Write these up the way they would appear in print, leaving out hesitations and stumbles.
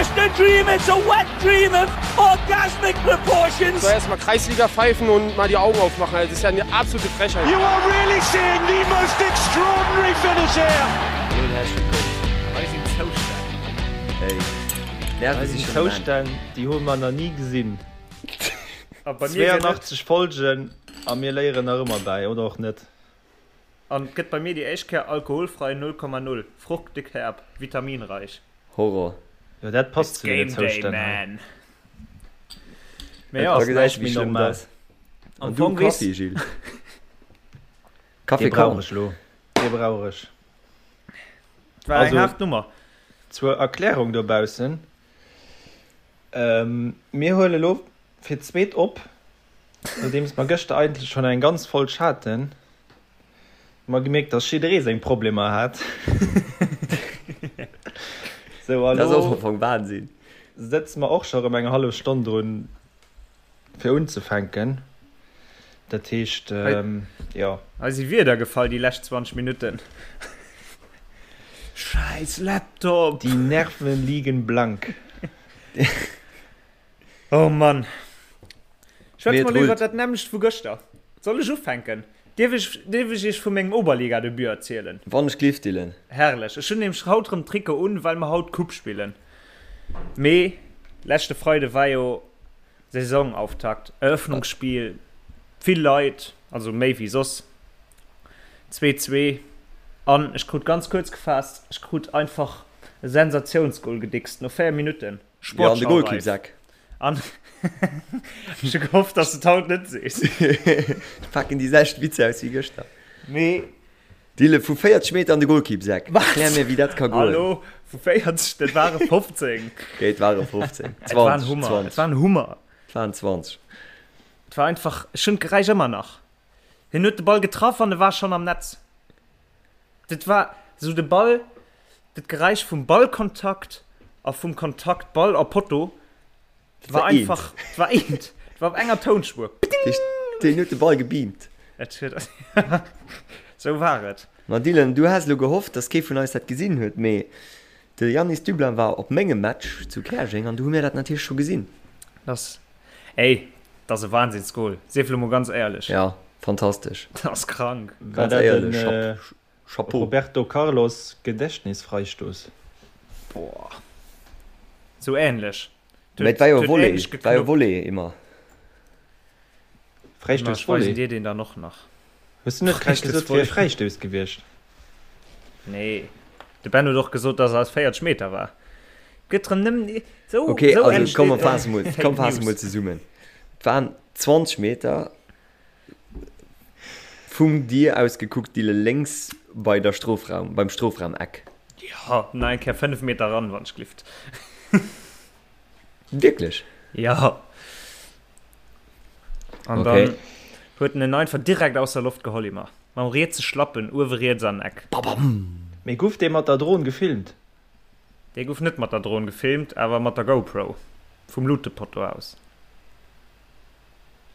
just a dream, it's a wet dream of orgasmic proportions. So erstmal Kreisliga pfeifen und mal die Augen aufmachen. Das ist ja eine absolute Frechheit. You are really seeing the most extraordinary finish here. Hallo und herzlich willkommen. Hei sinn Zoustänn. Hey, Nerven si Hei sinn schon am Enn. Zoustänn, déi hu mer nach ni gesinn. A bei mir gëtt et. 82 Folgen a mir léieren nach ëmmer bäi, oder och net. An et gëtt bei mir déi éischt Kéier alkoholfrei 0,0, fruchtig herb, vitaminreich. Horror. Jo, dat passt It's zu deene Game Day, Zoustänn hei. man! Mee jo, Da ass gesäis näischt du, wéi méi schlëmm normal. dat ass. Am An du Fong weess. Kaffi, Gilles? Dee Kaffi brauch Korn. ech elo. Dee brauch ech. Et war eng Also, haart Nummer. zur Erklärung dobaussen, Mir huele elo fir d'zweet op, nodeems mer gëschter eigentlech schonn eng ganz Folg haten. Hu mer gemierkt, dass jidderee seng Problemer hat. Sou, a Dat ass och lo am Fong Wahnsinn. sëtze mer och scho rëm eng hallef Stonn drun, fir unzefänken. Dat heescht, jo. Hei si Wierder gefall déi lescht 20 Minutten. Schäiss Laptop! Die Nerven liegen blank. Oh Mann. Schwätze Mee et mer elo iwwer rullt. dat nämmlecht vu gëschter. Soll ech ufänken? Dierf ech, dierf ech iech vu mengem Oberliga-Debut erzielen? Wann ech glift, Dylan. Herrlech. Ech hunn nämlech haut rëm Trikot un, well mer haut Coupe spillen. Mee leschte Freide war jo Saisonauftakt, Eröffnungsspiel, vill Leit, also méi wéi soss. Zwee, zwee. An ech krut, ganz kuerz gefaasst, ech krut einfach e Sensatiounsgol gedickst no 4 Minutten. Jo, an de Sportschau-reif. Golkippsak. An ech hu gehofft, dass du et haut net sees. Ech paken déi selwecht Witzer aus wéi gëschter. Mee. Dille, vu 40 Meter an de Golkippsak. Wat? Erklär mir, wéi dat ka goen. Hallo, vu 40, dat ware 15. Okay, et ware 15. Et war en 20, Hummer, 20. et war en Hummer. Et waren 20. Et war einfach, ech hunn d'Geräisch ëmmer nach. Hien huet de Ball getraff an e war schonn am Netz. Dat war esou de Ball, dat Geräisch vum Ballkontakt a vum Kontakt Ball a Potto war einfach, et war eent, et war op enger Tounspuer. Pting! Deen huet de Ball gebeamt. Et huet, esou war et. Ma Dylan, du has elo gehofft, dass kee vun eis dat gesinn huet, mee de Yanis Dublin war op mengem Match zu Käerjeng an do hu mir dat natierlech scho gesinn. Dass, ey, dat ass e Wahnsinnsgoal, sief elo mol ganz éierlech. Ja, fantastesch. Dat ass krank. War Ganz dat éierlech, den Chapeau. Roberto Carlos Gedächtnisfreistoß? Boah. Sou ähnlech. Mee et war jo Volley, et war jo Volley immer. Fräistouss Ech weisen Volley? dir deen dann och nach. Hues du net grad gesot, et wier e Fräistouss gewiescht? Nee. De Ben huet och gesot, dass e aus 40 Meter war. Gëtt rëm nëmmen esou, Okay, esou also komm, mer entsteet faasse mol, Fake komm, faasse News. mol zesummen. Et waren 20 Meter vum dir aus gekuckt, Dille, lénks bei der Strofraum, beim Strofraumeck. Jo, nach eng Kéier 5 Meter ran, wann ech glift. Wierklech? Jo. An Okay. dann huet en en einfach direkt aus der Loft geholl, immer. Mam rietse Schlappen, uewe riets an den Eck. Babam! Mee guff dee mat der Dron gefilmt? Dee guff net mat der Dron gefilmt, awer mat der GoPro. Vum Lutepotto aus.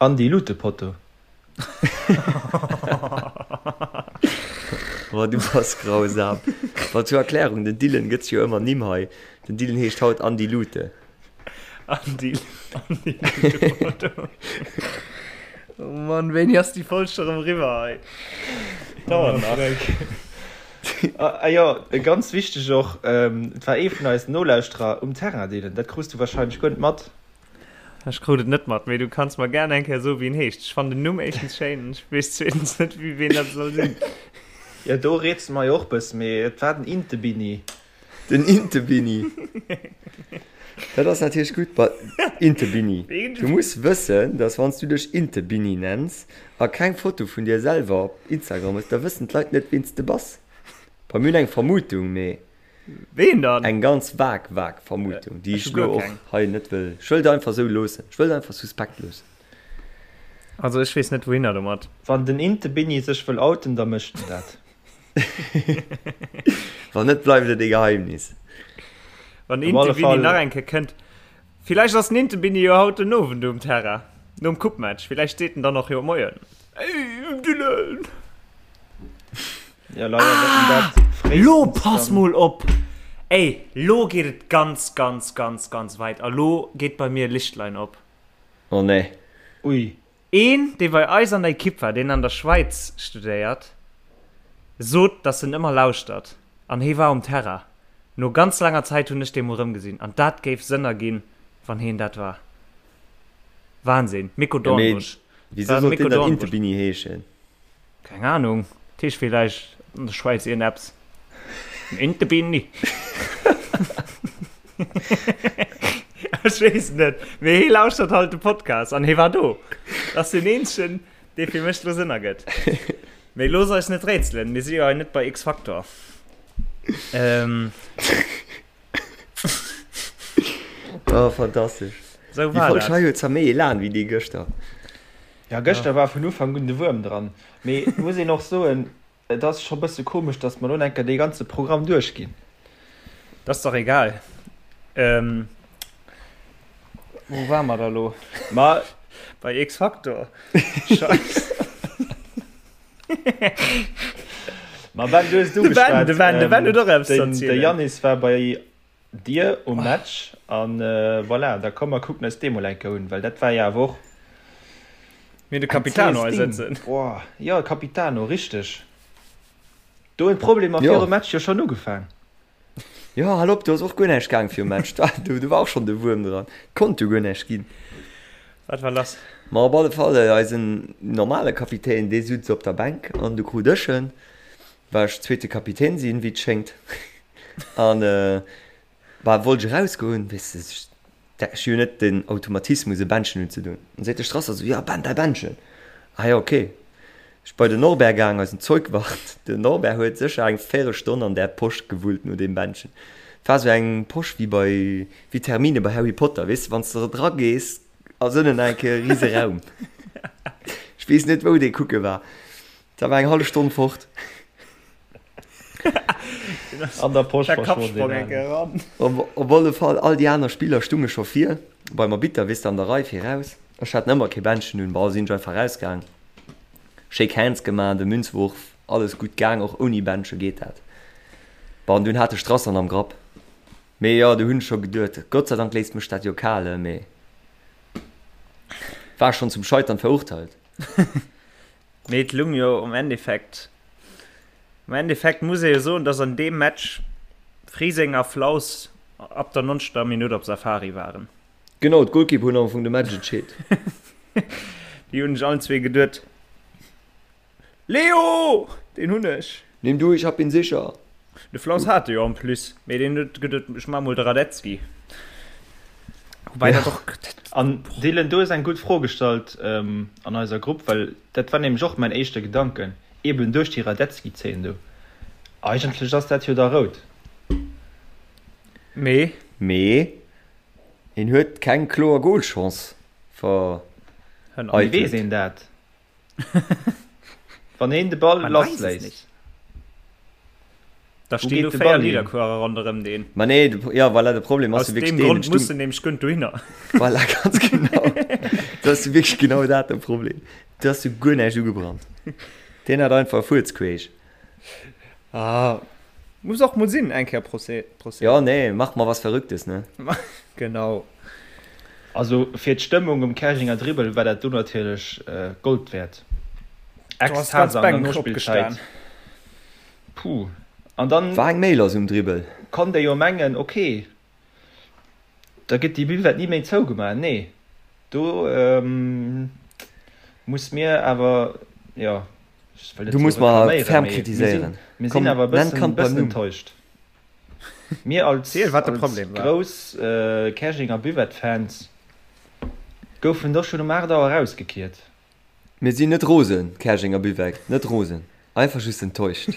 Andi Lutepotto. Oh, du bass grausam. Bon, zur Erklärung, den Dylan gëtt sech jo ëmmer Nimm hei. Den Dylan heescht haut Andi Lute. Andi, Andi Lutepotto. Oh Mann, wéini ass déi Folg scho rëm eriwwer hei? Dauert nach. Ah jo, ganz wichteg och, et war ee vun eisen Nolauschterer um Terrain, Dylan. Dat krus du wahrscheinlech guer net mat. Ech krut et net mat, mee du kanns mer gär eng Kéier soen, wéi en heescht. Ech fannen den Numm éischtens schéin an ech weess zweetens net, wéi ween dat soll sinn. Jo, do rätsele mer jo och bëssen, mee et war den Intebini. Den Intebini. Dat ass natierlech gutt. Ba, Intebini. Du muss wëssen, dass wann s du dech Intebini nenns a keng Foto vun dir selwer op Instagram hues, da wëssen d'Leit net, ween s de bass. Bei mir hunn eng Vermutung, mee. Ween dann? Eng ganz vag, vag Vermutung, déi Ech ech hu guer elo och keng. hei net wëll. Ech wëll et einfach esou loossen. Ech wëll et einfach suspekt loossen. Also ech weess net wouhinner domat. Wann den Intebini sech wëll outen, da mécht en dat. Wann net, bleift et e Geheimnis. Wann den Op alle Intebini Fall. nach eng Kéier kënnt. Villäicht ass den Intebini jo haut den Owend um Terrain, nom Coupe-Match. Villäicht seet en dann och jo Moien. Ey, Dylan! Ja, leider ah, dat Lo pass mol op! Ey, lo geet et ganz, ganz, ganz, ganz weit a lo geet bei mir e Lichtlein op. Oh nee. Ui. Een, dee bei eis an der Ekipp war, deen an der Schwäiz studéiert, sot, dass en ëmmer lauschtert an hee war um Terrain. No ganz laanger Zäit hunn ech dee mol rëmgesinn an dat géif Sënn erginn, wann heen dat war. Wahnsinn. Miko Ja, mee Dornbusch. wisou War sollt Miko deen dann Dornbusch. Intebini heeschen? Keng Ahnung, dat heescht villäicht an der Schwäiz iergendeppes. En Intebini. Ech weess et net, mee hee lauschtert halt de Podcast an hee war do. Dat ass deen eenzegen, dee fir mech do Sënn ergëtt. Mee looss eis net rätselen, mir si jo hei net bei X-Factor. Ähm. Oh, fantastesch. Sou Déi war Folg dat. hei huet zwar méi Elan wéi déi gëschter. Ja, gëschter war vun Ufank un de Wuerm dran. Mee et muss een och soen, et ass scho bësse komesch, datt mer lo enker dee ganze Programm duerchginn. Dat ass dach egal. Ähm, wou ware mer da lo? Ma Bei X-Factor. Scheiss. Ma Ben, du hues et De Ben, ugeschwat. de Ben, de Ben huet och eppes ze Den, de erzielen. Yannis war bei dir um Match an voilà, da komm mer kucken eis dee mol eng Kéier un, well dat war jo awer och Mir hunn de eng Capitano zäes hei Ding. sëtzen. Boah, jo, Capitano, richteg. Do hunn d'Problemer Jo. virum Match jo schonn ugefaang. Jo, hal op, do ass och guer näischt gaang virum Match. Do, do war och schonn de Wuerm dran. Konnt jo guer näischt ginn. Wat war lass? Ma op alle Fall, eisen normale Kapitän, dee sutz op der Bänk an du krut ech en, well ech zweete Kapitän sinn, wéi et schéngt. An, bah, wollt ech erausgoen, weess de, Ech hu jo net den Automatismus e Bändchen unzedoen. An seet de Strasser esou, jo Ben, däi Bändchen. Ah jo, ok. Ech bei den Norbert gaang, eisen Zeugwart. Den Norbert huet sécher eng Véirelstonn an där Posch gewullt no deem Bändchen. Et war esou eng Posch wéi bei, wéi d'Hermine bei Harry Potter, weess de, wann s de dra gees, ass ënnen nach eng Kéier e rise Raum. Ech weess net, wou dee kucke war. Da war eng hallef Stonn fort. An der Posch Der verschwonn Kappsprong deen eng Alen. eran. Op op alle Fall, all déi aner Spiller stunge scho vir beim Arbitter, weess de, an der Rei viraus. Ech hat ëmmer kee Bändchen un, bon, sinn ech einfach rausgaang, Shake Hands gemaach, de Münzwurf, alles gutt gaang, och ouni Bändche geet dat. Bon, an dunn hat de Strasser en am Grapp. Mee jo, do hunn ech scho geduet, Gott sei Dank léisst mech dat jo kal, mee war schonn zum Scheitern verurteilt. Mee et lung jo um Endeffekt. Am Endeffekt muss ee jo soen, dass an deem Match Friseng a Flaus ab der 90. Minutt op Safari waren. Genau, d'Golkeeper hunn am Fong de Match entscheet. Déi hunn sech allen zwee geduet, Leo! Deen hunn ech! Nimm du, ich hab ihn sicher! De Flaus hat e jo en plus, mee deen huet geduet, ech maache mol de Radetzky. Woubäi dat och. An Dylan, du hues eng gutt Fro gestallt an eiser Grupp, well dat war nämlech och mäin éischte Gedanken, eben duerch déi Radetzky-Zeen do. Eigentlech ass dat jo da rout. Mee? Mee hien huet keng kloer Golchance vereitelt. Wéi weess een dat? Wann een de Ball lassléisst. Da stinn do 4 Nidderkuerer ronderëm deen. Ma nee, jo voilà, de Problem ass jo wierklech deen. Aus deem Grond muss en nämlech guer net dohinner. Voilà, ganz genau. Dat ass jo wierklech genau dat de Problem. Do ass jo guer näischt ugebrannt. Deen hat einfach e Fuerz queesch. Ah, muss och mol sinn, eng Kéier Procès. Jo, nee, mach mal was Verrücktes, ne? Genau. Also fir d'Stëmmung um Käerjenger Dribbel war dat do natierlech Gold wäert. Ekstase an der Nospillzäit. Puh. An dann War eng méi lass um Dribbel. konnt ee jo mengen, ok, da gëtt déi Buvette ni méi zougemaach. Nee, do muss mir awer, jo, ech wëll net Du sou muss mer reklaméieren, ferm mee mir sinn, kritiséieren. mir Komm, sinn awer e nenn bëssen, d'Kand beim bëssen Numm. enttäuscht. Mir als, Ziel, wat de als Problem war. grouss Käerjenger Buvette-Fans goufen do schonn um 8 Auer erausgekiert. Mir sinn net rosen, Käerjenger Buvette, net rosen, einfach just enttäuscht.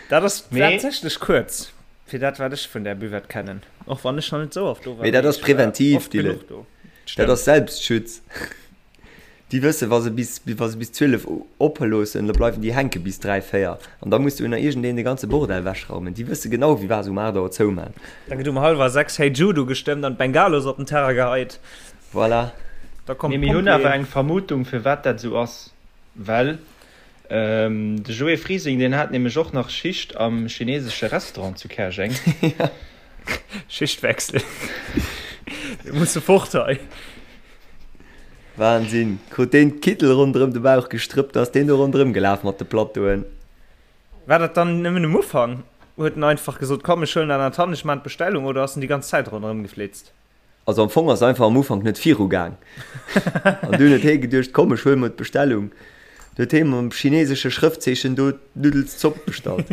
Dat ass Mee. tatsächlech kuerz fir dat, wat ech vun där Buvette kennen, och wann ech nach net sou oft do war, Mee dat mee ass ech war präventiv, oft Dylan. genuch do. Dat Stemmt. ass Selbstschutz. Déi wëssen, wa se bis, wa se bis 12 oppe loossen, da bleiwen déi hänke bis 3, 4. An da muss duerno iergendeen de ganze Bordell wechraumen. Déi wësse genau, wéi wa se um 8 Auer zoumaan. Da gëtt um hallwer 6 Hey Jude ugestëmmt an d'Bengalos op den Terrain geheit. Voilà. Da kommen Mee mir hunn awer d'Pompjeeën. eng Vermutung, firwat dat esou ass. Well. De Joé Frising, deen hat nämlech och nach Schicht am chinesesche Restaurant zu Käerjeng. Schichtwechsel. Mir musse fort hei. Wahnsinn! Krut deen d'Kittel ronderëm de Bauch gestrëppt, ass deen do ronderëm gelaf mat de Plateauen. War dat dann nëmmen um Ufank? Huet en einfach gesot, komm ech huelen dat an d'Hand, ech maan d'Bestellung, oder ass en déi ganz Zäit ronderëm geflitzt? Also am Fong ass einfach am Ufank net viru gaang. An dunn huet hee geduecht, komm ech huele mer d'Bestellung. Du huet hee mam chinesesche Schrëftzeechen do d'Nuddelszopp bestallt.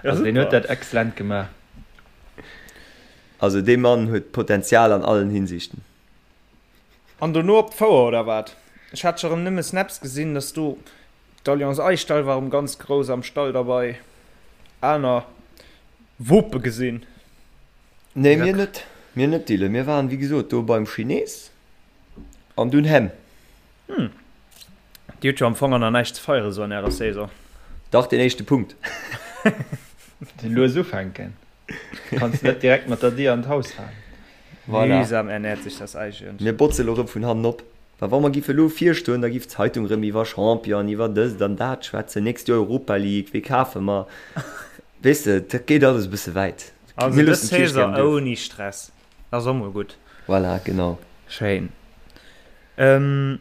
Also deen huet dat excellent gemaach. Also dee Mann huet Potenzial an allen Hinsichten. An dono op d'Fouer oder wat? Ech hat scho rem nëmme Snaps gesinn, dass do d'Alliance Aichtal war rem ganz grouss am Stall derbei. Aner Wope gesinn. Nee, mir net. Mir net, Dylan. Mir waren, wéi gesot, do beim Chines an dunn hemm. Hm. Dir hutt jo am Fong an nach näischt ze feieren, sou an ärer Saison. Dach, deen éischte Punkt. Lues ufänken. Kanns net direkt mat der Dier an d'Haus falen. Voilà. Mühsam ernährt sich das Eichhörnchen. Mir botze lo rëm vun hannen op. Well wa mer giffe lo virstoen, da giff d'Zeitung rëm iwwer Champion, iwwer dëst an dat schwätzen, nächst Joer Europa League, wee kafe mer? Weess de, dat geet alles e bësse wäit. Also Mir dës loossen d'Kierch Saison gären duerf. ouni Stress, dat ass och mol gutt. Voilà, genau. Schéin. Ähm,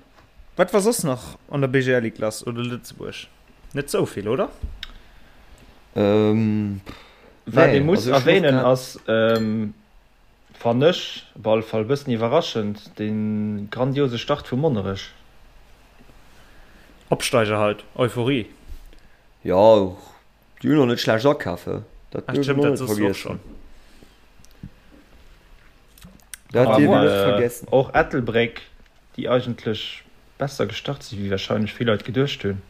wat war soss nach an der BGL Ligue lass oder Lëtzebuerg? Net sou vill, oder? Ähm, Wat ee nee, muss also ech hunn och erwähnen grad. ass, ähm, fannen ech op alle Fall e bëssen iwwerraschend, de grandiose Start vu Monnerech. Opsteiger halt, Euphorie. Jo, Déi hunn och net schlecht akaf, he? Dat duerf een och net vergiessen. Dat dierf een net vergiessen. Och Ettelbréck, déi eigentlech besser gestart sinn, wéi warscheinlech vill Leit geduecht hunn,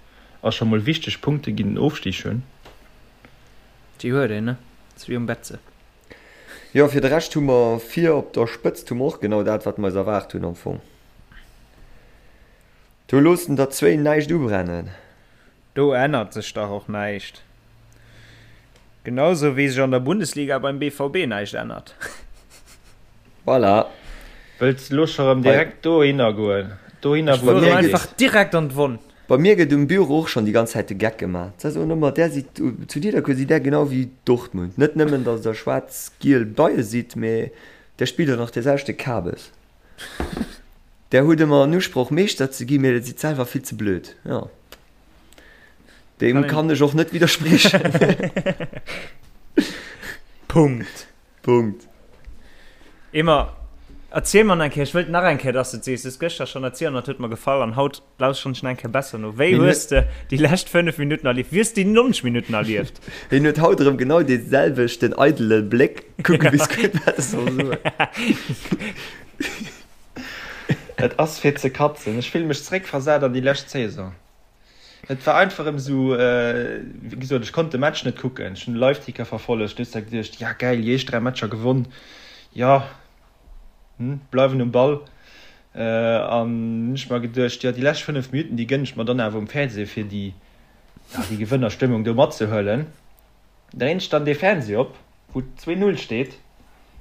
a scho mol wichteg Punkte géint den Ofstig hunn. Déi huet een, ne? Ass wéi um Betze. Jo, fir de Rescht hu mer vir op der Spëtzt hu mer och genau dat, wat mer eis erwaart hunn am Fong. Do loossen der zwéin näischt ubrennen. Do ännert sech dach och näischt. Genau sou wéi sech an der Bundesliga beim BVB näischt ännert. Voilà. Wëlls de lo scho rëm direkt dohinner goen? Dohinner wou et wéi geet? Einfach direkt an d'Wonn. Bei mir gëtt um Büro och schonn déi ganz Zäit de Geck gemaach. Se soen ëmmer, där sidd, zu Nidderkuer sidd där genau wéi Dortmund. Net nëmmen, datt der schwaarz-giel Beie sidd, mee där spillt och nach dee selwechte Kabes. Där hutt ëmmer en Usproch, Meeschter ze ginn, mee der sidd selwer vill ze blöd. Jo. Deem kann ech och net widderspriechen. Punkt. Punkt. Emer, erziel mer nach eng Kéier, ech wëllt nach eng Kéier, dass de et sees. Du hues gëschter schonn erzielt an dat huet mer gefall an haut lauschteren ech nach eng Kéier besser no. Wéi hues de déi lescht 5 Minutten erlieft? Wéi hues de déi 90 Minutten erlieft? Hien huet haut erëm genau dee selwechten eidele Bléck. Kucke bis gutt, wat e soll soen. Et ass fir ze katzen. Ech fille mech zeréckversat an déi lescht Saison. Et war einfach erëm esou, wéi gesot, ech konnt de Match net kucken. Ech hunn de Liveticker verfollegt, du hues da geduecht, ja gäil, déi éischt 3 Matcher gewonn, jo, hm, bleiwen um Ball. An hunn ech mer geduecht, jo, déi lescht 5 Minutten, déi gënn ech mer dann awer um Fernseh, fir déi, ja, déi Gewënnerstëmmung do matzehuelen. Dréint ech dann dee Fernseh op, wou 2, 0 steet,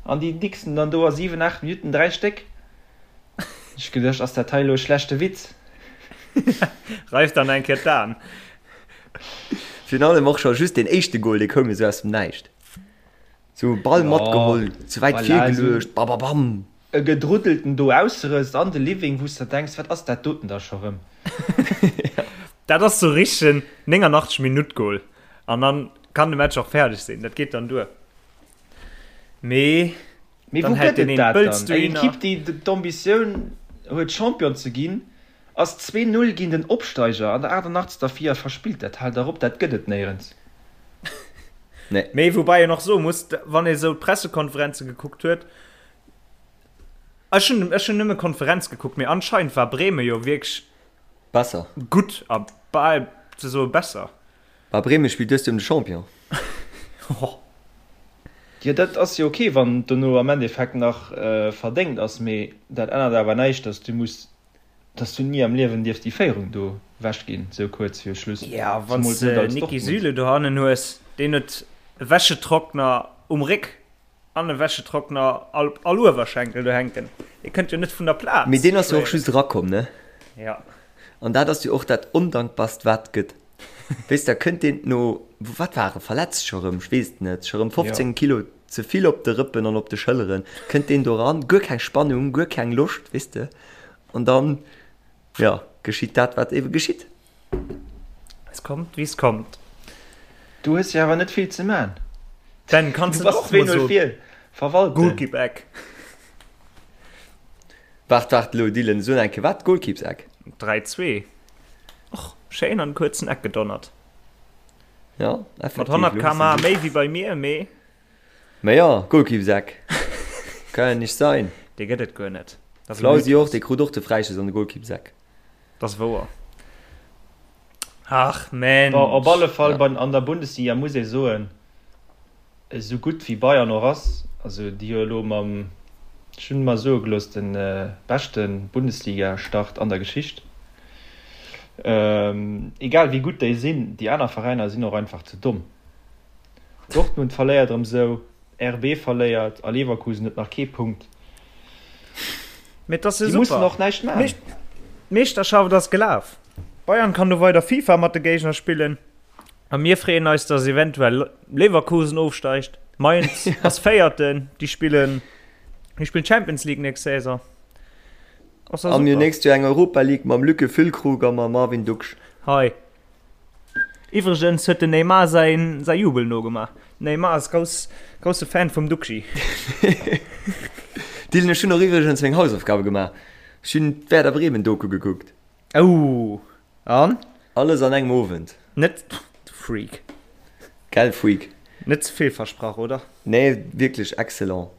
an déi dixen dann do a 7, 8 Minutten 3 Stéck. Ech geduecht, ass dat hei elo e schlechte Witz? Reif dann eng Kéier d'Aen. Virun allem och scho just deen éischte Gol, dee koum jo sou aus dem Näischt. Sou Ball matgeholl, ze wäit virgeluecht, bababam. E Gedruddelten do ausserësst an de Living, wou s der denks, wat ass dat doten da scho rëm? Dat ass sou richtegen 89 Minutt Goal an dann kann de Match och fäerdeg sinn, dat geet dann duer. Mee Mee wou gëtt et dat dann? Eng Ekipp déi d'Ambitioun huet Champion ze ginn, ass 2, 0 géint en Opsteiger an der 88. vir a verspillt dat. Haal dach op, dat gëtt et néierens. Mee woubäi een och soe muss, wann ee sou d'Pressekonferenze gekuckt huet, Ech hunn ech hunn nëmme Konferenz gekuckt, mee anscheinend war Bremen jo wierklech Besser. gutt a bal ze soe besser. Bah Bremen spillt dëst Joer ëm de Champion. Jo dat ass jo ok wann et dono am Endeffekt nach verdéngt ass, mee dat ännert awer näischt dass du muss, dass du ni am Liewen dierfs déi Féierung do wech ginn sou kuerz viru Schluss, Ja wann s de Niki Süle dohannen hues, deen huet e Wäschetrockner um Réck An e Wäschetrockner all all Uewerschenkel do hänken. Dee kënnt jo net vun der Plaz. Mee deen ass jo och just erakomm, ne? Ja. An dat ass jo och dat Ondankbarst, wat et gëtt. Weess, da kënnt deen no, wat war e, verletzt scho rëm, ech weess et net, scho rëm 15 Kilo ze vill op de Rëppen an op de Schëlleren, kënnt deen do ran, guer keng Spannung, guer keng Loscht, weess de. An dann, jo, geschitt dat, wat ebe geschitt. Es kommt, wie es kommt. Du hues jo awer net vill ze man. Ben, kanns Du du bass och mol 2-0 soen. vir. Verwalten. Goalkeeper-Eck. Waart, waart elo, Dylan, so eng Kéier, wat? Goalkeeps-Eck? 3, 2. Och schéin an den kuerzen Eck gedonnert. Ja, Mat effektiv. 100 Elo hues km/h de méi wéi bei mir, mee. Mä ja, Goalkeeps-Eck. Kann ja nicht sein. Dee gëtt et guer net. Dat ass e Flausi och, Mythos. dee krut och de Fräischoss an de Goalkeeps-Eck. Dat ass wouer. Ach Mensch. Bon, op alle Fall bei an der Bundesliga muss ee soen, esou gutt wéi Bayern och ass, also déi hu elo mam, ech hunn mer soe gelooss, de beschte Bundesliga-Start an der Geschicht, egal wéi gutt déi sinn, déi aner Veräiner sinn och einfach ze domm. Dortmund verléiert erëm sou, RB verléiert a Leverkusen huet nach kee Punkt. Mee et ass jo Déi mussen super. och näischt maachen. D'Meeschterschaft ass gelaf. Bayern kann do weider FIFA mat de Géigner spillen a mir freeën eis, dass eventuell Leverkusen ofsteigt. Mainz ass Véierten, déi spillen, déi spillen Champions League nächst Saison. Ass da A mir super. nächst Joer eng Europa League mam Lücke Füllkrug a mam Marvin Ducksch. Hei. Iwwregens huet den Neymar säin säi Jubel nogemaach. Den Neymar ass grouss grousse Fan vum Duxi. Dylan, ech hunn och iwwregens meng Hausaufgabe gemaach. Ech hunn d'Werder Bremen Doku gekuckt. Ouh, an? Alles an engem Owend. Net, du Freak. Gell Freak? Net ze vill versprach, oder? Nee, wierklech excellent.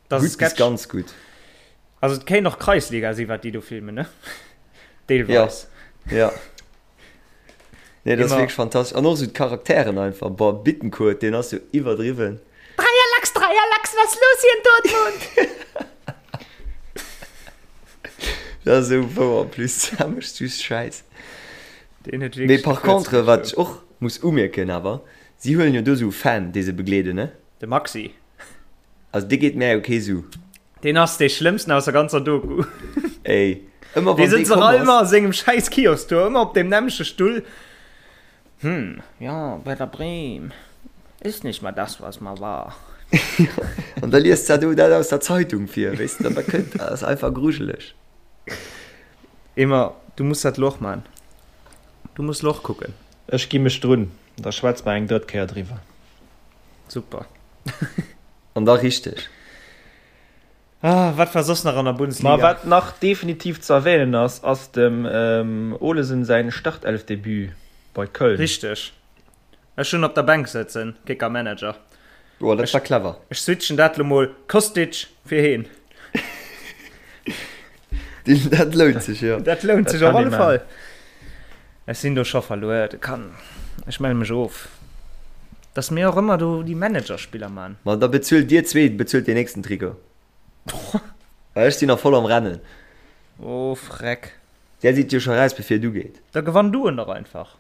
Das Gutt bis ganz gutt. Also et kéint och Kreisliga si wat déi do filmen, ne? Deelweis. Ja, ja. Nee, dat ass wierklech fantastesch. An och esou d'Charakteren einfach. Boah, Bittencourt, deen ass jo iwwerdriwwen. Dreier Lachs, Dreier Lachs, was los hier in Dortmund? Dat ass esou wouer en plus. Dat mécht just Schäiss. Deen huet Mee wierklech par de Kuerz contre, wat ech gezogen. och muss umierken awer, si huelen jo do esou Fan, déi se begleeden, ne? De Maxi. Also dee geet mär jo kee Su. Deen ass dee schlëmmsten aus der ganzer Doku. Ey, ëmmer Dee wann dee sëtzt och komm ass. ëmmer a sengem schäiss Kiosk do, ëmmer op deem nämmleche Stull. Hm, ja, Werder Bremen ist nicht mehr das, was mal war. An da liest dat do dat aus der Zeitung vir, weess de, an da kënnt, dat ass einfach grujeleg. Emma, du muss dat lo och man. Du muss lo och kucken. Ech gi mech drun, da schwätze mer eng drëtt Kéier driwwer. Super. An da richteg. Ah, wat war soss nach an der Bundesliga? Ma wat nach definitiv ze erwähnen ass, ass dem Olesen säin Startelfdebut bei Köln. Richteg. Ech hunn op der Bänk sëtzen, Kicker Manager. Oh, dat war clever. Ech switchen dat lo mol Kostic fir heen. Dat lount sech, jo. Dat lount sech Dat op kann alle ee Fall. man. Ech sinn do scho verluer. Dat kann, ech melle mech of. Dass mir och ëmmer do déi Managerspiller man. Ma da bezuelt dir zwee, bezuelt deen nächsten Trikot. Well ech sinn nach voll am Rennen. Oh Freck. Där sidd jo scho raus bevir et ugeet. Da gewann du en dach einfach.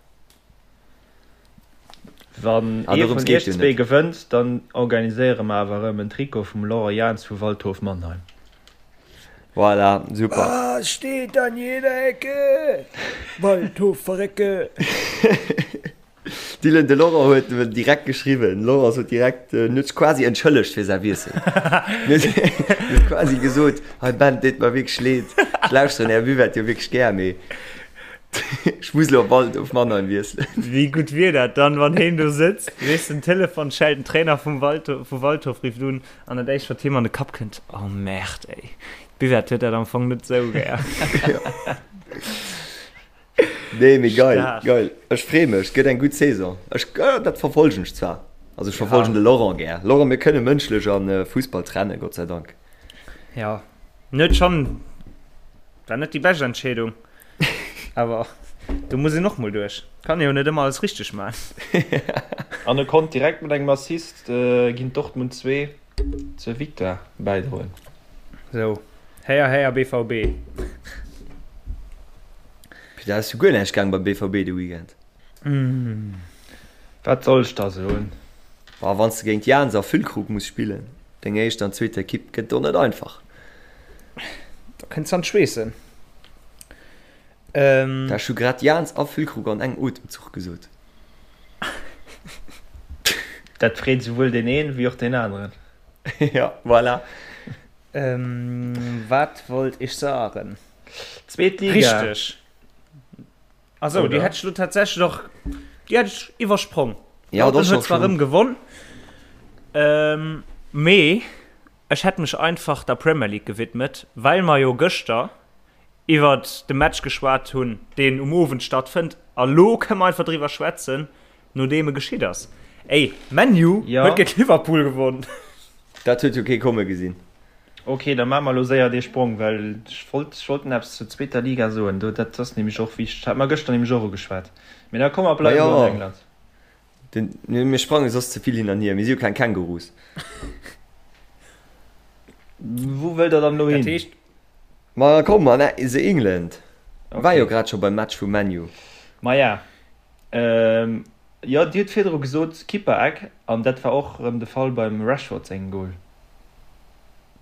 Wann Ah, ee dorëms vun geet iech jo zwee net. gewënnt, dann organiséiere mer awer erëm en Trikot vum Laurent Jans vu Waldhof Mannheim. Voilà, super. Was steht an jeder Ecke? Waldhof verrecke! Dylan, de Laurent huet em direkt geschriwwen. Laurent sot direkt, en huet sech quasi entschëllegt fir säi Wiessel. En huet quasi gesot, Hei Ben, et deet mer wierklech leed, ech lauschteren Är Buvette jo wierklech gär, mee ech muss elo op Waldhof Mannheim wiesselen. Wéi gutt wier dat dann, wann heen do sëtzt, weess, den Telefon schellt, den Trainer vum Waldhof, vu Waldhof rifft un an dat éischt wat him an de Kapp kënnt, Oh Merde, ey, d'Buvette huet dat am Fong net sou gär. Nee, mee geil, Stark. geil. Ech free mech, gëtt eng gutt Saison. Ech, äh, dat verfolgen ech zwar. Also ech verfolgen Ja. de Laurent gär. Laurent, mir kënne mënschlech an äh, Fussball trennen, Gott sei Dank. Ja, net schon, war net déi bescht Entscheedung, awer do muss een och mol duerch. Kann jo net ëmmer alles richteg man. An e konnt direkt mat engem Assist äh, géint Dortmund 2 zur Victoire bäidroen. Sou, héier héier BVB. Pit, da ass jo guer näischt gaang beim BVB de Weekend. Wat soll ech da soen? Boah, wann s de géint Jans a Füllkrug muss spillen, deng éischt an zweet Ekipp, gëtt och net einfach. Da kënns an d'Schweessen. Ähm. Ech hu grad Jans a Füllkrug an engem Otemzuch gesot. Dat freet souwuel deen een wéi och deen aneren. Ja, voilà. Ähm, wat wollt ech sagen? Zweet Liga. Richteg. Also, déi hätt ech lo tatsächlech och, déi hätt ech iwwersprong. Ja, dat huet zwar rëm gewonn, ähm, mee ech hätt mech einfach der Premier League gewidmet, well mer jo gëschter iwwert de Match geschwat hunn, deen um Owend stattfënnt. A lo kënne mer einfach driwwer schwätzen, nodeem e geschitt ass. Ey, ManU huet géint Liverpool gewonn! Dat huet jo kee komme gesinn. Ok, da maache mer elo séier dee Sprong, well ech wollt, ech wollt nach eppes zur zweeter Liga soen. Do, dat ass nämlech och wichteg. Hate mer gëschter nämlech och ugeschwat. Mee da komm, mer bleiwen elo an England. Den, mir sprange soss ze vill hin an hier. Mir si jo keng Kängurus. Wou wëllt Der dann elo hin? Dat heescht. Ma komm, an the England. War jo grad scho beim Match vu ManU. Maja, jo, Dir hutt virdru gesot Kippereck, an dat war och erëm de Fall beim Rashford sengem Goal.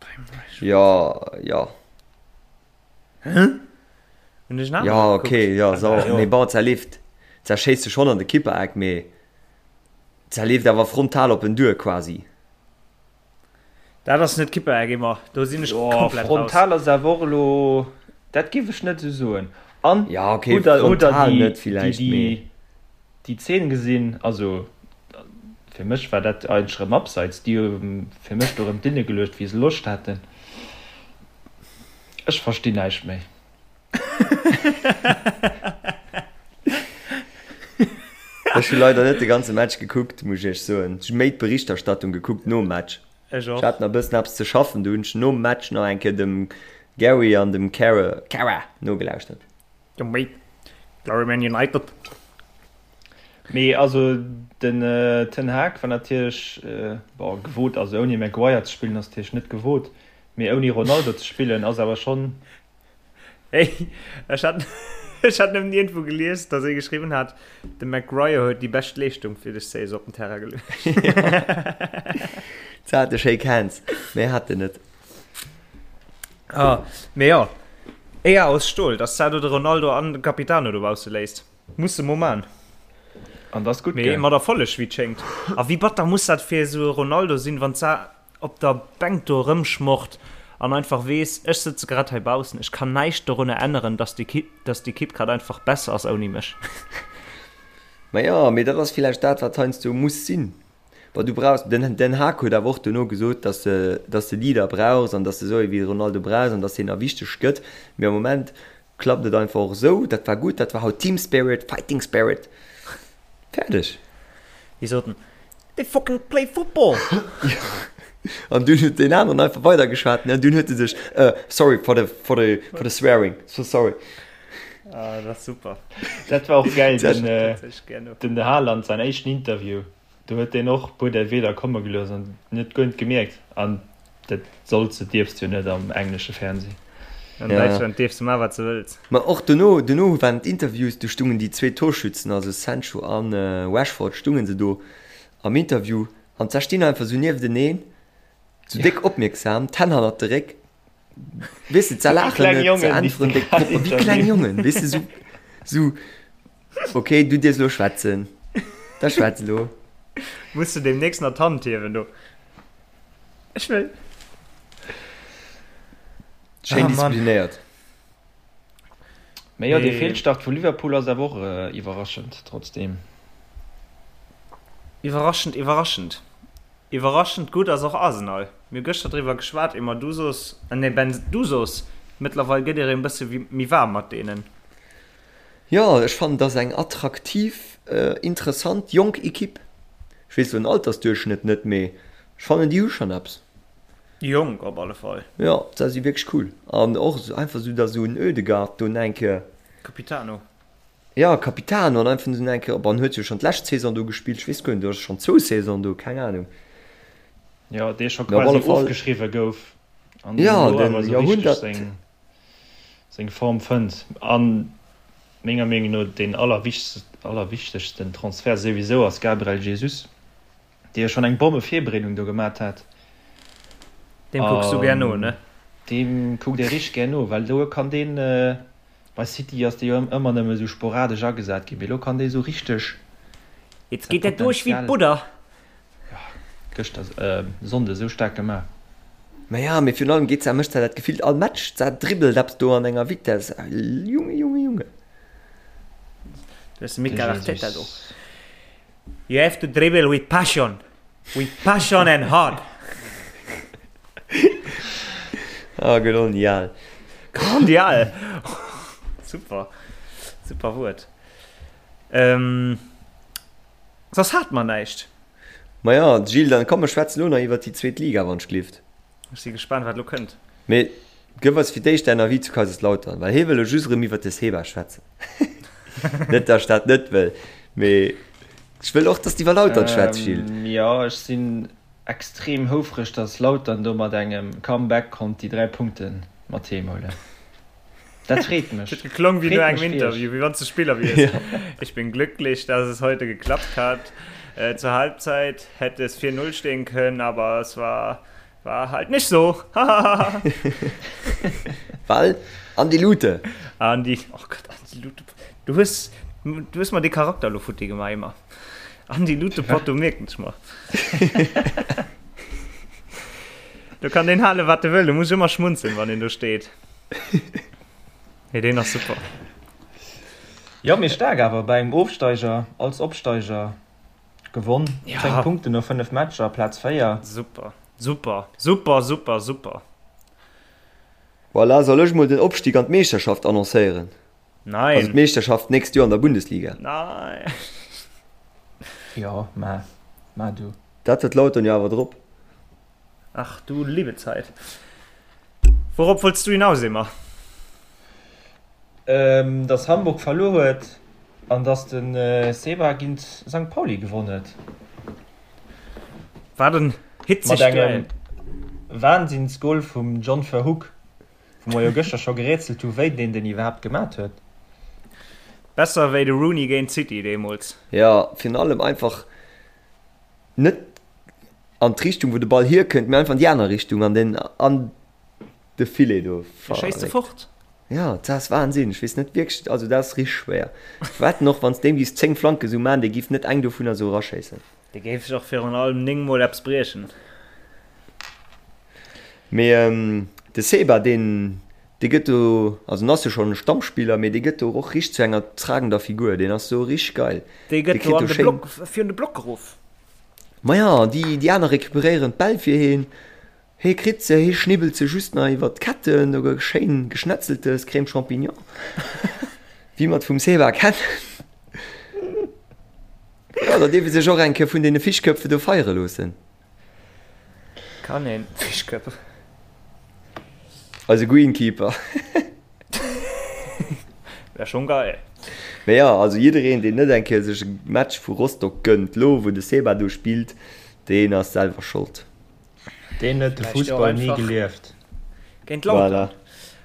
Beim Rashford? Jo, jo. Hä? Hunn ech en aneren Jo, gekuckt? okay, jo, so, Ah, jo. mee bon, zerleeft, zerschéisst se schonn an de Kippereck, mee zerleeft awer frontal op en duer quasi. Dat ass net Kippereck, Emma, do sinn ech Jo, komplett raus. frontal ass awer och elo, dat géif ech net esou soen. An Ja, okay, hutt der, hutt der frontal déi, net déi, villäicht, déi, mee. déi Zeen gesinn? Also, fir mech war dat eigentlech erëm abseits. Déi hu fir mech do erëm d'Linne geluecht, wéi se Loscht haten. Ech verstinn näischt méi. Ech hu leider net de ganze Match gekuckt, muss ech iech soen. Ech hu méi d'Berichterstattung gekuckt nom Match. Ech och. Ech hat nach e bëssen eppes ze schaffen, do hunn ech nom Match nach eng Kéier dem Gary an dem Cara, Cara nogelauschtert. Jo méi. Glory Man United. Mee also den Ten Hag war natierlech, bon, gewot, also ouni Maguire ze spillen ass natierlech net gewot, mee ouni Ronaldo ze spillen ass awer schonn. Hey, ech hat, ech hat nëmmen iergendwou gelies, datt ee geschriwwen hat, de Maguire huet déi bescht Leeschtung fir dës Saison op den Terrain geluecht. Zarte Shake Hands, méi hat en net. Ah, mee jo, Eeër aus Stol, dass d'Sado de Ronaldo an de Capitano dobausse léisst, muss se mo man. An dat ass gutt, Mee gell? mat Erfolleg, wéi et schéngt. A wéi batter muss dat fir esou e Ronaldo sinn, wann d'Sa op der Bänk do erëmschmocht an einfach weess, ech sëtze grad hei baussen, ech kann näischt dorunner änneren, dass d'Ekipp grad einfach besser ass ouni mech. Ma jo, mee dat ass villäicht dat, wat heiansdo muss sinn. Bon, du brauchs, den Den Hag huet awer och dono gesot, dass de, dass de Leader brauchs an dass de esou ee wéi de Ronaldo brauchs an dass deen nach wichteg gëtt. Mee am Moment klappt et einfach och esou. Dat war gutt, dat war haut Team Spirit, Fighting Spirit. Fäerdeg. Déi soten, They fucking play football! An dunn huet deen aneren einfach weidergeschwat, ne, an dunn huet e sech, äh, sorry for the, for the, for the swearing, so sorry. Ah, dat ass super. Dat war och gäil, den, Dat huet ech gär no. den Haaland säin éischten Interview. Do huet deen och e puer där Wierder komme gelooss an net guer net gemierkt. An dat solls de, dierfs de jo net am englesche Fernseh. An Däitschland dierfs de maachen, wat s de wëlls. Ma och dono, dono waren d'Interviews, do stungen déi zwee Torschützen, also Sancho a Rashford, stungen se do am Interview an da stinn einfach sou niefteneen, sou déck opmierksam, d'Hänn hannert de Réck, weess de, ze laachen net, ze äntweren déck propper, wéi kleng Jongen, weess de, sou, sou. Ok, du dierfs elo schwätzen. Da schwätz elo. Muss de demnächst nach d'Hand hiewen do. Ech wëll. Schéin Ah, Mann. disziplinéiert. Mee jo, dee Mee- Feelstart vu Liverpool ass awer och iwwerraschend, trotzdeem. Iwwerraschend, iwwerraschend. Iwwerraschend gutt ass och Arsenal. Mir hu gëschter driwwer geschwat, Emma, du soos, nee Ben, du soos, mëttlerweil gëtt ee rëm e bësse méi waarm mat deenen. Jo, ech fannen, et ass eng attraktiv, interessant, jonk Equipe. Ech weess elo den Altersduerchschnëtt net, mee ech fannen, déi hu schonn eppes. Jonk op alle Fall. Jo, se si wierklech cool. An och einfach esou, datt esou en Ødegaard do eng Kéier. Capitano. Jo, Capitano an einfach esou eng Kéier, bon, en huet jo schonn d'lescht Saison do gespillt, ech weess guer net, oder schonn zwou Saison do, keng Anung. Jo, dee scho Mee op quasi alle Fall. ofgeschriwwe gouf an deen Jo, elo den awer esou richteg Jahrhundert. seng. seng Form fënnt an menger Meenung no deen allerwichtegsten Transfert souwisou ass Gabriel Jesus, dee jo schonn eng Bommevirbereedung do gemat hat. Deem kucks du gär no, ne? Deem kuckt ee richteg gär no, well do kann deen. Bei City ass dee jo ëmmer nëmme sou sporadesch agesat ginn, mee elo kann dee sou richteg Jetzt geet dat duerch wéi d'Budder. Jo, gëschter, Sonnde sou staark gemaach. Ma ja, mee virun allem geet se, mécht se dat gefillt all Match, se dribbelt eppes do an enger Vitesse, Junge, Junge, Junge. Du hues de Mikel Arteta do. You have to dribble with passion. With passion and heart. Ah, grandial. Grandial. Super. Super Wuert. Ähm, soss hat mer näischt. Ma ja, Gilles, dann komm, mer schwätzen elo nach iwwert déi zweet Liga, wann ech glift. Ech si gespaant, wat elo kënnt. Mee gëff eis fir d'éischt däin Avis zu Kaiserslautern, well hie wëll elo just erëm iwwert de Seba schwätzen. Net, datt ech dat net wëll, mee ech wëll och, datt s de iwwer Lautern schwätz, Gilles. Jo, ech sinn extrem houfreg, datt Lautern do mat engem Comeback konnt déi 3 Punkte mat heem huelen. Dat freet mech. Dat huet geklong wéi no Freet engem mech fir iech. Interview, wéi wann s de Spiller wiers. Ich bin glücklich, dass es heute geklappt hat. Zur Halbzeit hätte es 4, 0 stehen können, aber es war war halt nicht so. Hahaha. Well Andi Lute. Andi, oh Gott, Andi Lute. Du hues, du hues mer dee Charakter elo futti gemaach, Emma. Andi Lute Porto mierken ech mer. Do kann deen halen, wat e wëll, do muss ech ëmmer schmunzeln, wann deen do steet. Nee, deen ass super. Jo, mee staark awer bei engem Ofsteiger als Opsteiger gewonn. Ja. 10 Punkten no 5 Matcher, Plaz 4. Super, super, super, super, super. Voilà, soll ech mol den Opstig an d'Meeschterschaft annoncéieren? Nein. Also d'Meeschterschaft d'nächst Joer an der Bundesliga. Nein. Jo, mä, mä du. Dat huet Lautern jo awer drop. Ach du liebe Zeit. Wourop wollts du hinaus, Emma? Dass Hamburg verluer huet an dass de Seba géint Sankt Pauli gewonn huet. Wat en hitzegt Mat engem Duell. Wahnsinnsgol vum John Verhoek, wou mer jo gëschter scho gerätselt hu wéi deen den iwwerhaapt gemat huet. Besser wéi de Rooney géint City deemools. Jo, virun allem einfach net an d'Richtung wou de Ball hierkënnt, mee einfach an déi aner Richtung an den an de Filet do. Dee schéisst e fort. Jo, dat ass Wahnsinn. Ech weess net wierklech, also dat ass richteg schwéier. Ech wetten och, wann s deem giffs 10 Flanke sou man, dee giff net eng dovunner sou eraschéissen. Dee géif sech och virun allem 9 mol eppes briechen. Mee de Seba, deen, dee gëtt do, also en ass jo schonn e Stammspiller, mee dee gëtt do och richteg zu enger tragender Figur. Deen ass do richteg geil. Dee Dee gëtt do kritt an do de schéin. Block, virun de Block geruff. Maja, déi, déi aner recuperéieren d'Bäll fir heen. Hee kritt se, hee schnibbelt se just nach iwwert d'Ketten, do gëtt schéin geschnetzeltes Crème Champignon, wéi mer et vum Seba kennen. Jo, da dierf ee sech och eng Kéier vun deene Fischköpfe do feiere loossen. Kann een Fischköpfe. Eise Greenkeeper. Wär schon geil. Mee jo, also jiddereen deen net eng Kéier sech e Match vu Rostock gënnt, lo wou de Seba do spillt, deen ass selwer Schold. Deen huet de Fussball ni gelieft. Géint Lautern. Voilà.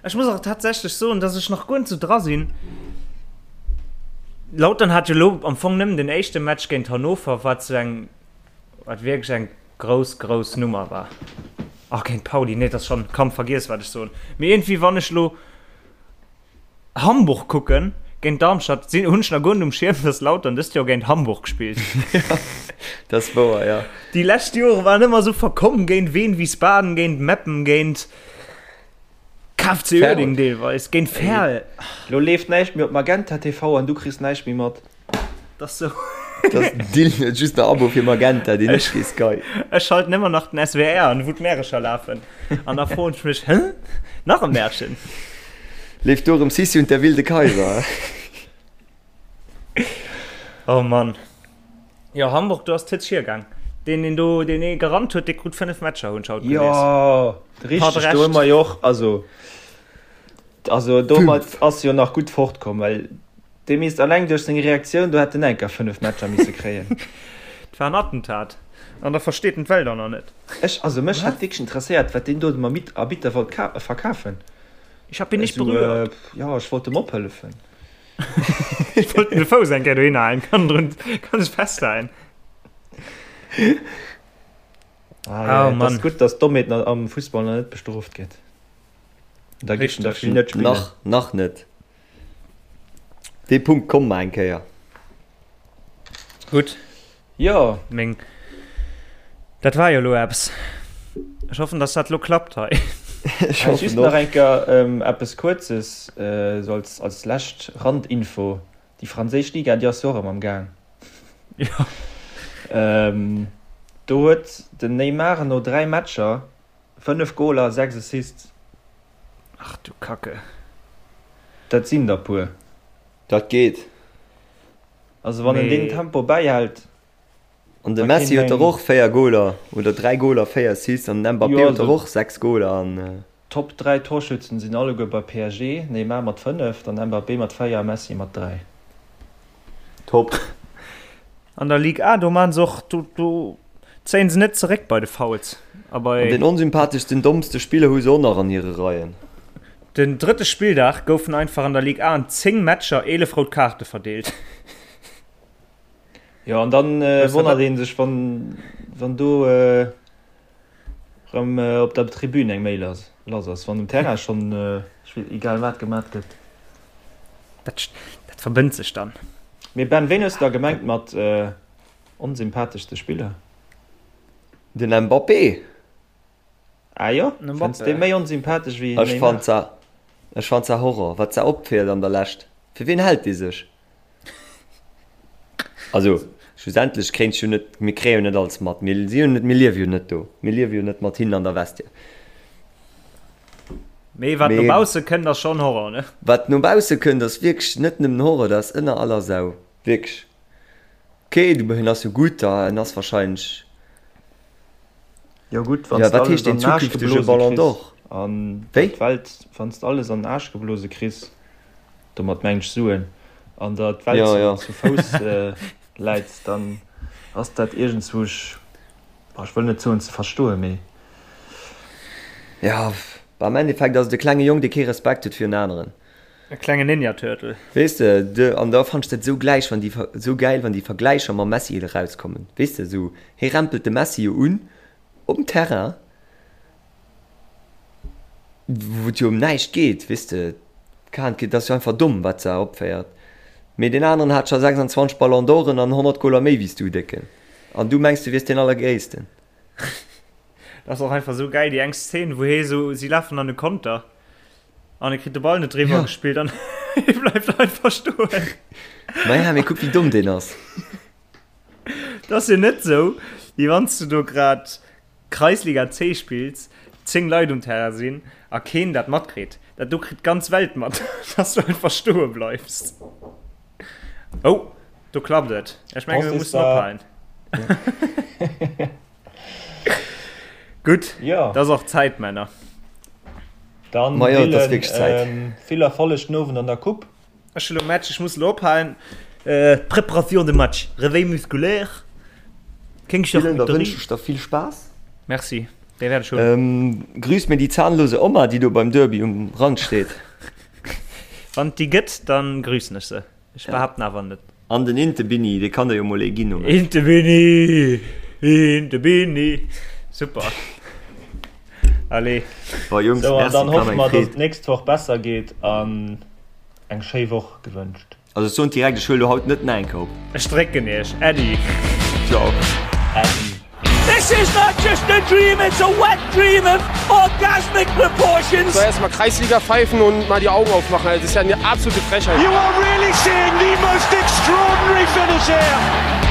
Ech muss och tatsächlech soen, dass ech nach guer net sou dra sinn. Lautern hat jo lo am Fong nëmmen den éischte Match géint Hannover, wat sou eng, wat wierklech eng grouss, grouss Nummer war. Ach, géint Pauli, nee, dat ass schonn, komm, vergiess wat ech soen. Mee iergendwéi, wann ech lo Hamburg kucken géint Darmstadt, sinn, hunn ech nach guer net um Schierm, dass Lautern dëst Joer géint Hamburg spillt. Dat ass wouer, jo. Déi lescht Jore waren ëmmer esou verkomm, géint Wien Wiesbaden, géint Meppen, géint KFC Uerdingen deelweis, géint Verl. Lo leeft näischt méi op Magenta TV an du kriss näischt méi mat. Dat ass sou. Dat Dylan huet just nach Abo fir Magenta, deen ech kee Sky. Ech schalten ëmmer nach den SWR an, wou d'Märecher lafen. An da froen ech mech, Hä? Nach e Märchen? Leeft do erëm Sissi und der wilde Kaiser? Oh Mann. Jo, Hamburg, do ass d'Hëtz hiergaang. Deen, deen do, deen ee gerannt huet, dee krut 5 Matcher, hunn ech haut gelies. Jo, richteg, do hu mer jo och, also, also domat ass jo nach gutt fortkomm, well Dee misst alleng duerch seng Reaktioun do hätt en enker 5 Matcher misse kréien. Et war en Attentat an da versteet en d'Welt och nach net. Ech, also mech hätt wierklech interesséiert wat deen do dem Arbitter wollt verkafen. Ich hab ihn nicht berührt. Jo, ech wollt em ophëllefen. Ech wollt em de Fouss eng Kéier dohinner halen, kann drun, kann sech festhalen. Ah, jo, et ass gutt, dass d'Dommheet am Fussball nach net bestrooft gëtt. Da géif en der vill net spillen. Nach, nach net. Dee Punkt komme mer eng Kéier. Gutt. Jo. Meng, dat war jo elo eppes. Ech hoffen, dass dat elo klappt hei. Ech hoffen Just nach och. eng Kéier eppes Kuerzes, esou als, als lescht Randinfo, Déi franséisch Liga, déi ass jo och erëm am Gaang. Jo. Do huet den Neymar no 3 Matcher 5 Goler a 6 Assists. Ach du Kacke. Dat sinn der puer. Dat geet. Also wann en deen Tempo bäihält. An de Messi huet der och 4 Goler oder 3 Goler, 4 Assists an den Mbappé huet der och 6 Goler an. Top 3 Torschützen sinn alleguer bei PSG, Neymar mat 5, dann Mbappé mat 4 a Messi mat 3. Top. An der Ligue A, do maan se och, do do zéien se net zeréck bei de Fouls a bei. An den onsympatheschsten, dommste Spiller hu se och nach an hire Reien. Den drëtte Spilldag goufen einfach an der Ligue A an 10 Matcher 11 rout Kaarte verdeelt. Jo, an dann wonnert ee sech, wann wann do rëm op der Tribün eng Méi lass ass, wann um Terrain schonn egal wat gemat gëtt. Dat dat verbënnt sech dann. Mee Ben, ween hues de da gemengt mat onsympatheschste Spiller? Den Mbappé. Ah jo? Fënns de méi onsympathesch wéi Ech fannt se, ech fannt se Horror, wat se opféiert an der Lescht. Fir ween hält dee sech? Also, schlussendlech kréint jo net, mir kréie jo net alles mat, mir si jo net, mir liewe jo net do, mir liewe jo net mat hinnen an der Vestiaire. Mee wat no bausse kënnt ass schonn Horror, ne? Wat no bausse kënnt ass wierklech net nëmmen Horror, dat ass ënner aller Sau, wierklech. Ok, du, en ass jo gutt, en ass wahrscheinlech. Jo gutt, wann s de alles heescht an den den Aarsch zukünftege geblose Ballon kriss d'Or? an Wéi? d'Welt, wann s de alles an den Aarsch geblose kriss, domat mengen ech Suen, an der d'Welt Ja, ja. zu Fouss läit, dann ass dat iergendzwousch, boah, ech wëll net soen ze verstoen, mee. Ja, am Endeffekt ass et e klenge Jong, dee kee Respekt huet virun aneren. E klenge Ninja Turtle. Weess de, de, an da fannt ech dat esou gläich, wann déi, esou gäil, wann déi Vergläicher mam Messi erauskommen. Weess de, esou, hie rempelt de Messi jo un um Terrain, wou et jo ëm näischt geet, weess de, d'Kand, dat ass jo einfach domm, wat se opféiert. Mee deen aneren hat scho 26 Ballon d'Oren an 100 Goler méi wéi s du, Décken. An du mengs, du wiers deen Allergréissten. Dat ass och einfach esou gäil, déi eng Szene, wou hie esou, si lafen an e Konter. An e kritt de Ball net driwwer ja. gespillt an e bleift einfach stoen. Naja, mee kuck wéi domm deen ass. Dat ass jo net sou, wéi wann s du do grad Kreisliga C spills, 10 Leit um Terrain sinn a keen dat matkritt. Dat do kritt d'ganz Welt mat, dass du einfach stoe bleifs. Oh, do klappt et. Ech menge mir mussen ophalen. Gutt, Ja. dat ass och Zäit, Männer. Dann Ma jo, et ass Dylan, wierklech Zäit. ähm, vill Erfolleg den Owend an der Coupe. Ech hu lo Match, ech muss lo ophalen. Äh, Préparation de match, Réveil musculaire, kéng Dylan, da Charcuterie. wënsch ech der vill Spaass. Merci, dee wäert ech hunn. Ähm, grüss mir déi zahnlose Oma, déi do beim Derby um Rand steet. Wann et déi gëtt, dann grüssen ech se. Ech behaapten awer net. An den Inte Bini, dee kann der jo mol ee ginn, oder? Inte Bini, Inte Bini. Super. Allez. Bon Jungs, Sou, an merci, dann et war hoffe mir eng mer, dass Freed. et d'nächst Woch besser geet an eng schéi Woch gewënscht. Also ech soen direkt, ech huele lo haut net nach eng Kéier op. Ech drécken iech. Äddi. Ciao. Äddi. This is not just a dream, it's a wet dream of orgasmic proportions. So erstmal Kreisliga pfeifen und mal die Augen aufmachen. Also, das ist ja eine absolute Frechheit. You are really seeing the most extraordinary finish here.